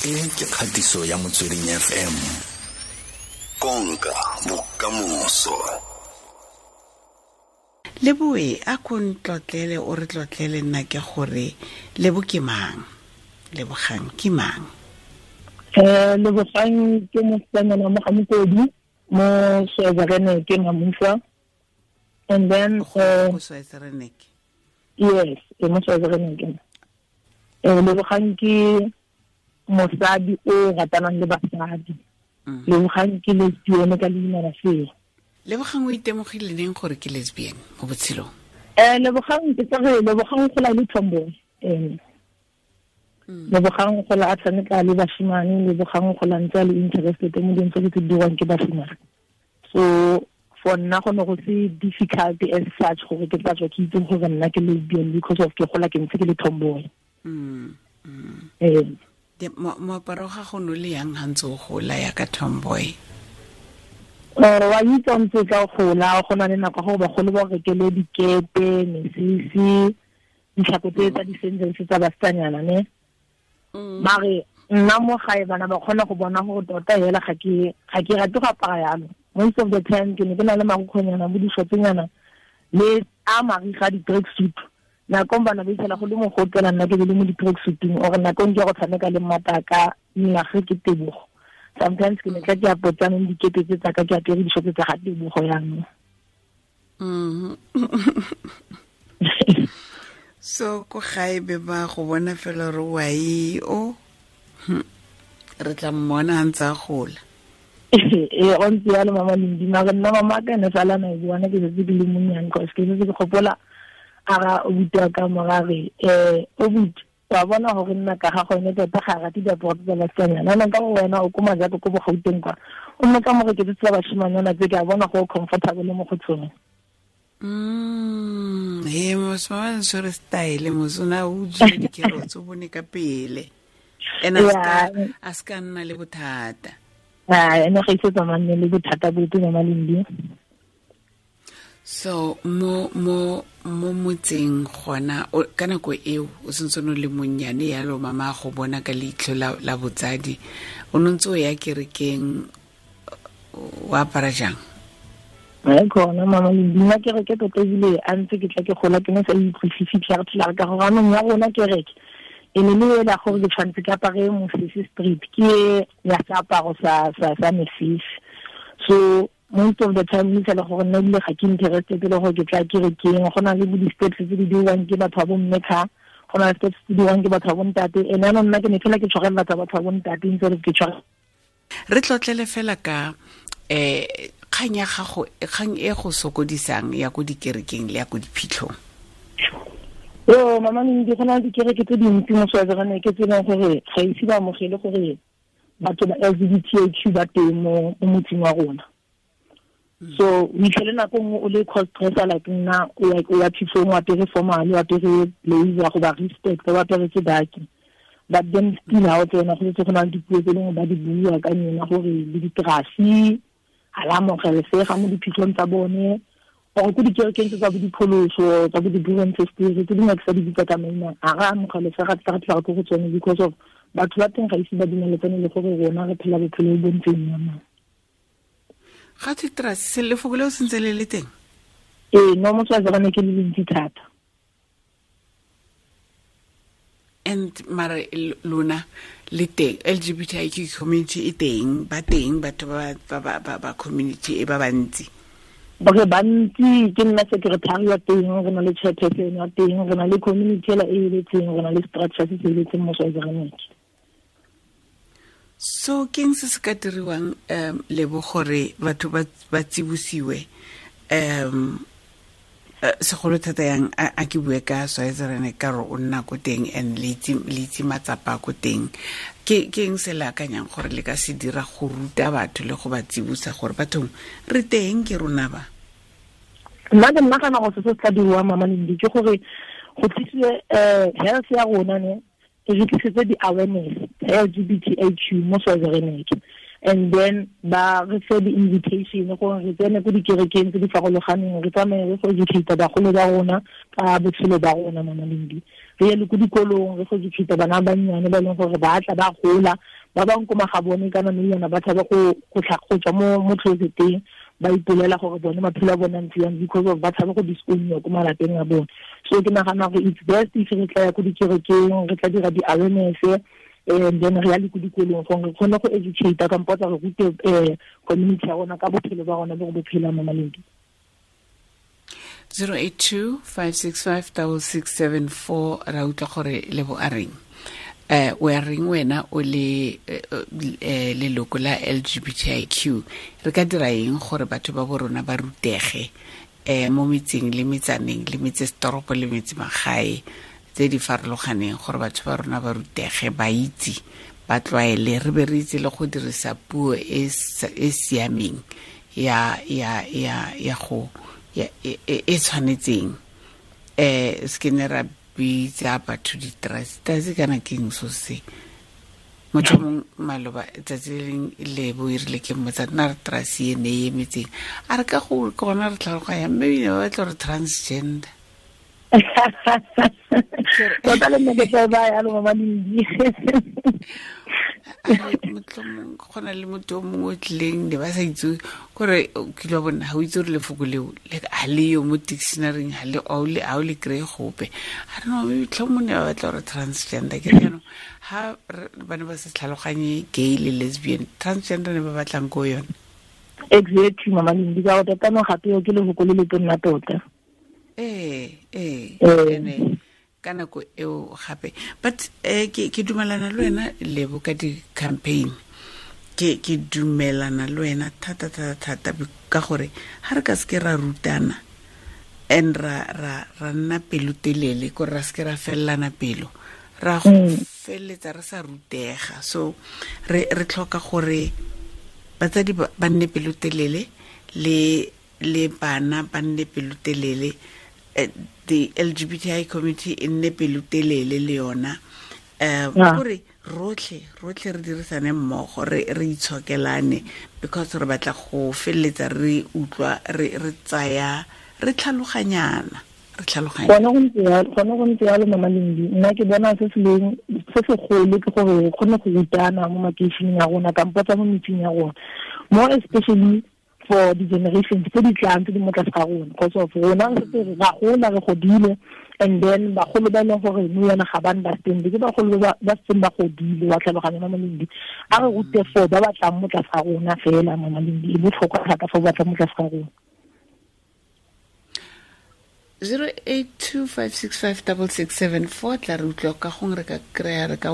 E ke kgatiso ya Motsweding FM. Konka bokamoso. Leboe a ko ntlotlele o re tlotlele nna ke gore Lebo ke mang? Lebogang ke mang? Lebogang ke mosetsanyana mo Gamokodi mo Soezareneke Mamusa. And then go Soezareneke. Yes, ke mo Soezareneke. Lebogang ke mosadi o ratanang le basadi. Lebogang ke lesbian ka leina la seo. Lebogang o itemogile neng gore ke lesbian mo botshelong? Lebogang ke tsere Lebogang gola le tomboy. Lebogang gola a tshameka le bashimane, Lebogang gola ntse a le interested mo dilong tse di dirwang ke bashimane. So for nna go ne go se difficult as such gore ke tla tswa ke itse gore nna ke lesbian because of ke gola ke ntse ke le tomboy. Moaparo ga go no le yang ha ntse o gola ya ka tomboy? Wa itse ntse ka gola go na le nako go bagolo ba rekele dikete, mesese, ditlhako tse tsa di-sandals tsa basetsanyana ne. Mare nna mo gae bana ba kgona go bona gore tota hela ga ke rate go apara yalo. Most of the time ke ne ke na le marukgwenyana bo dishotsenyana le a mariga di-track suit. Nakong bana ba itsela go le mogotela nna ke be le mo di-track suiteng or nakong ke go tshameka le mmataka nna ge ke Tebogo. Sometimes ke ne tla ke apotsaneng dikete tse tsaka ke apere dishotse tsa ga Tebogo yanong. So ko gae be ba go bona fela re wa e o re tla mmona a ntse a gola. Ee, go ntse yalo mama Lindi. Mare nna mama ka ene sala na e bona ke setse ke le monnyane cause ke setse ke gopola a ga obuti wa ka morare obuti wa bona gore nna ka ga gone tota ga rate diaparo tsa basetsanyana. Jaanong ka gore wena o ko Majako ko Bogauteng kwa o nne ka mo reketse tsa bashimanyana tse ke a bona go comfortable mo go tsone. He moswa tshwere style mosona o utswile dikerotse o bone ka pele. Ene a ska nna le bothata. Ene ga ise tsamane le bothata bope mama Lindi. So mo motseng gona ka nako eo o sentse o le monnyane yalo mama go bona ka leitlho la botsadi o ntse o ya kerekeng o apara jang? Ai khona mama Lindi, nna kereke tota ebile a ntse ke tla ke gola ke ne sa utlwisise tlhare ka gore anong ya rona kereke e ne le ela gore ke tshwanetse ke apare mosese street ke ya seaparo sa mesese. So most of the time ke le gore nna ebile ga ke interested le gore ke tla kerekeng. Go na le bo di-steps tse di dirwang ke batho ba bomme kha, go na le steps tse di dirwang ke batho ba bontate. Ene anong nna ke ne fela ke tshwarelela tsa batho ba bontate instead of ke tshware. Re tlotlele fela ka kgang ya gago, kgang e go sokodisang ya ko dikerekeng le ya ko diphitlhong. Yo mama Lindi, go na le dikereke tse dintsi mo Soezareneke tse e leng gore ga ise ba amogele gore batho ba LGBTQ ba teng mo motseng wa rona. So o itlhele nako nngwe o le cross dresser like nna o ya phitlhong o apere formal, o apere blazer go ba respect, o aperetse daki. But then still ha o tsena go setse go na le dipuo tse dingwe ba di bua ka nyena gore le diterasi ga la amogelesega mo diphitlhong tsa bone or ko dikerekeng tse tsa bo dipholoso tsa bo di-buren-sisters tse dingwe ke sa di bitsa ka maina ga re amogelesega tla ko go tsone because of batho ba teng ga ise ba dumeletsane le gore rona re phela bophelo bo ntseng yana. Ga thwe terasi lefoko leo sentse le le teng? Ee, no mo Soezareneke le le ntsi thata. And mara lona le teng LGBTIQ community e teng, ba teng batho ba community e ba bantsi. Ba bantsi, ke nna secretary wa teng, re na le chairperson wa teng, re na le community ela e eletseng, re na le structure se se eletseng mo Soezareneke. So keng se se ka diriwang Lebo gore batho ba tsibosiwe segolo thata yang a ke bue ka Soezareneke ka gore o nna ko teng and le itse matsapa ko teng. Ke eng se le akanyang gore le ka se dira go ruta batho le go ba tsibosa gore bathong re teng ke rona ba? Nna ke nagana gore se se tla diriwang mama Lindi ke gore go tlisiwe health ya rona ne e re tlisetse di-awareness LGBTIQ mo Soezareneke. And then ba re fe di-invitation gore re tsene ko dikerekeng tse di farologaneng, re tsamaye re go educate bagolo ba rona ka botshelo ba rona mama Lindi. Re ye le ko dikolong, re go educate bana ba bannyane ba e leng gore ba tla ba gola, ba bangwe ko magabone kana mme yona ba tshaba go tswa mo closeteng, ba ipolela gore bone maphelo a bone a ntse yang because of ba tshaba go disown ko malapeng a bone. So ke nagana gore it's best if re tla ya ko dikerekeng, re tla dira di-awareness, and then re ya le ko dikolong gore re kgone go educate kampo tsa re rute community ya rona ka bophelo ba rona bo re bo phelang mo Malindi. 082 565 6674 ra utlwa gore Lebo a reng. O a reng wena o le leloko la LGBTIQ, re ka dira eng gore batho ba bo rona ba rutege mo metseng le metsaneng le metsesetoropo le metse magae tse di farologaneng, gore batho ba rona ba rutege, ba itse, ba tlwaele, re be re itse le go dirisa puo e siameng ya ya ya ya go ya e tshwanetseng. Se ke ne ra bitsa batho di-trust kana keng so se motho mongwe maloba tsatsi le leng Lebo e rile ke mmotsa nna re trust e ne e emetseng, a re ka go ke gona re tlhaloganya, mme ebile ba batla gore transgender. Tota le nne ke tla ba yalo Mama Lindi. Motlhomong go na le motho o mongwe o tlileng ne ba sa itse kore kile wa bona ga o itse gore lefoko leo ga le yo mo dictionaryng, ga o le kry-e gope. A re no, motlhomong ne ba batla gore transgender. Ke re jaanong ga ba ne ba sa tlhaloganye gay le lesbian, transgender ne ba batlang ko yone. Exactly Mama Lindi, ka gore tota no gape ke lefoko le le tonna tota. Ee, ene ka nako eo gape. But ke dumelana le wena Lebo ka di-campaign, ke dumelana le wena thata thata thata, ka gore ga re ka seke ra rutana and ra nna pelotelele, kore ra seke ra felelana pelo, ra go feleletsa re sa rutega. So re tlhoka gore batsadi ba nne pelotelele le bana ba nne pelotelele, the LGBTI community e nne pelotelele le yona, gore rotlhe re dirisane mmogo, re itshokelane, because re batla go feleletsa re utlwa re tsaya re tlhaloganyana. Gone go ntse yalo Mama Lindi. Nna ke bona se segolo ke gore re kgone go rutana mo makeišeneng a rona kampo tsa mo metseng ya rona, more especially for the generations tse di tlang tse di mo tlase ga rona, because of rona re setse ra gola, re godile, and then bagolo ba e leng gore nou yana ga ba understand, ke bagolo ba setseng ba godile, wa tlhaloganya Mama Lindi. A re rute for ba ba tlang mo tlase ga rona fela Mama Lindi, e botlhokwa thata for ba tlang mo tlase ga rona. 082 565 6674 tla re utlwa ka gongwe re ka kry-a re ka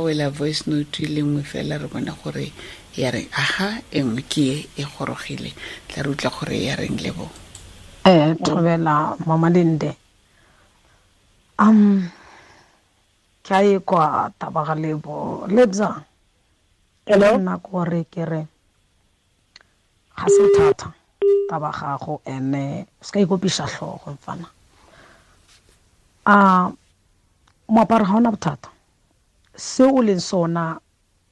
wela voice note le nngwe fela, re bone gore ya reng. Aha, e nngwe ke e gorogile, tla re utlwa gore ya reng Lebo. Thobela Mama Linde. Ke a e kwa taba ga Lebo. Lebza. Hello. Nna gore ke re ga se thata taba gago, ene se ka ikopiša tlhogo mfana. Moaparo ga ona bothata, se o leng sona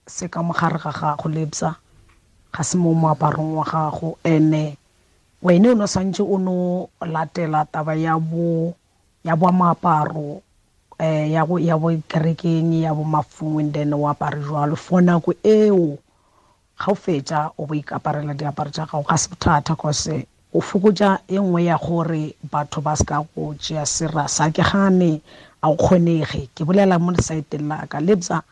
se ka mogare ga gago Lebza, ga se mo moaparong wa gago. Ene wene o no santse o no latela taba ya bo moaparo, ya bo kerekeng, ya bo mafung, and then o apare jwalo for nako eo. Ga o fetša o bo ikaparela diaparo tša gago, ga se bothata, cause o fokotša e nngwe ya gore batho ba se ka go tšea serasa. Ke gane a o kgonege, ke bolela mo lesaeteng la ka Lebza.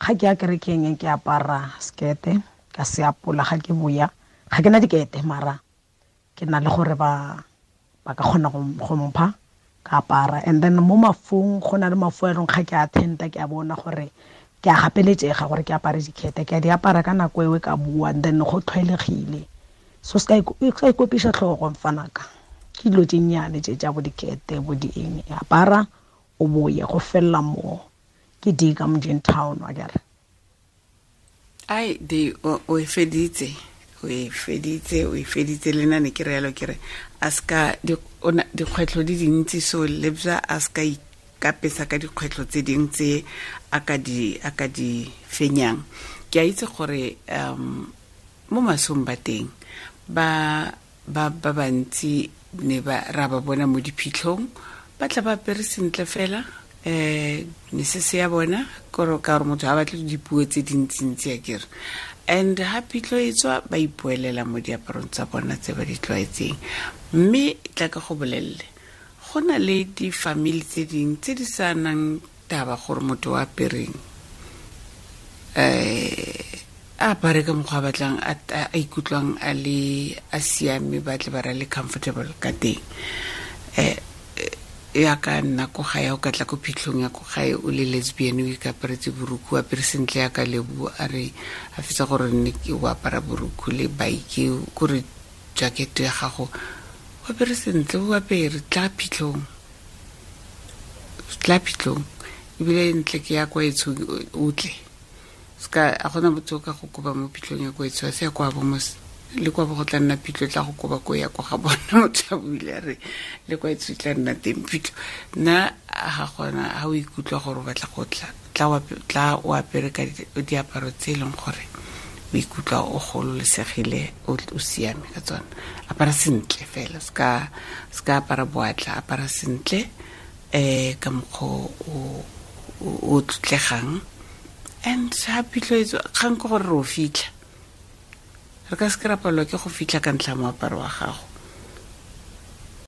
Ga ke ya kerekeng ke apara sekete ka se apola, ga ke boya ga ke na dikete, mara ke na le gore ba ka kgona go mpha ka apara. And then mo mafung go na le mafu a e leng ga ke attenda, ke a bona gore ke a gapeletšega gore ke apare dikete, ke a di apara ka nako eo ka bua, and then go tlwaelegile. So se ka ikopiša tlhogo mfanaka, ke dilo tše nnyane tše tša bo dikete bo di eng, apara o boye go fella mo. Ke di ka Mojeng town wa kere. Ai di o e feditse, o e feditse le nna ne ke re yalo, ke re a ska dikgwetlho di dintsi, so Lebza a ska ikapesa ka dikgwetlho tse dingwe tse a ka di fenyang. Ke a itse gore mo masong ba teng ba bantsi Ne ba ra ba bona mo diphitlhong, ba tla ba apere sentle fela, mesese ya bona, kore ka gore motho ga batle dipuo tse dintsintsi a kere. And ha phitlho e tswa, ba ipoelela mo diaparong tsa bona tse ba di tlwaetseng. Mme tla ka go bolelele, go na le di-family tse dingwe tse di sa nang taba gore motho o apereng, a apare ka mokgwa a batlang, a ikutlwang a le a siame, ba tle ba ra le comfortable ka teng. Ya ka nna ko gae, o ka tla ko phitlhong ya ko gae o le lesbian, o ikaparetse borukhu, o apere sentle ya ka Lebo, a re a fetsa gore nne ke o apara borukhu le bike, kore jacket ya gago o apere sentle, o apere tla phitlhong, tla phitlhong, ebile ntle ke ya kwa etsho o tle. Ska a gona motho o ka go koba mo phitlhong ya kwa etsho, a se ya kwa bo mos, le kwa bo go tla nna phitlho, tla go koba ko ya kwa ga bona. Motho a buile a re le kwa etsho tla nna teng phitlho. Nna ga gona, ha o ikutlwa gore o batla go tla, tla o apere ka diaparo tse e leng gore o ikutlwa o gololesegile, o siame ka tsona. Apara sentle fela, ska apara boatla, apara sentle, ka mokgwa o tlotlegang. And ha phitlho e tswa, kgang ke gore re o fitlha, re ka se ke ra palelwa ke go fitlha ka ntlha ya moaparo wa gago.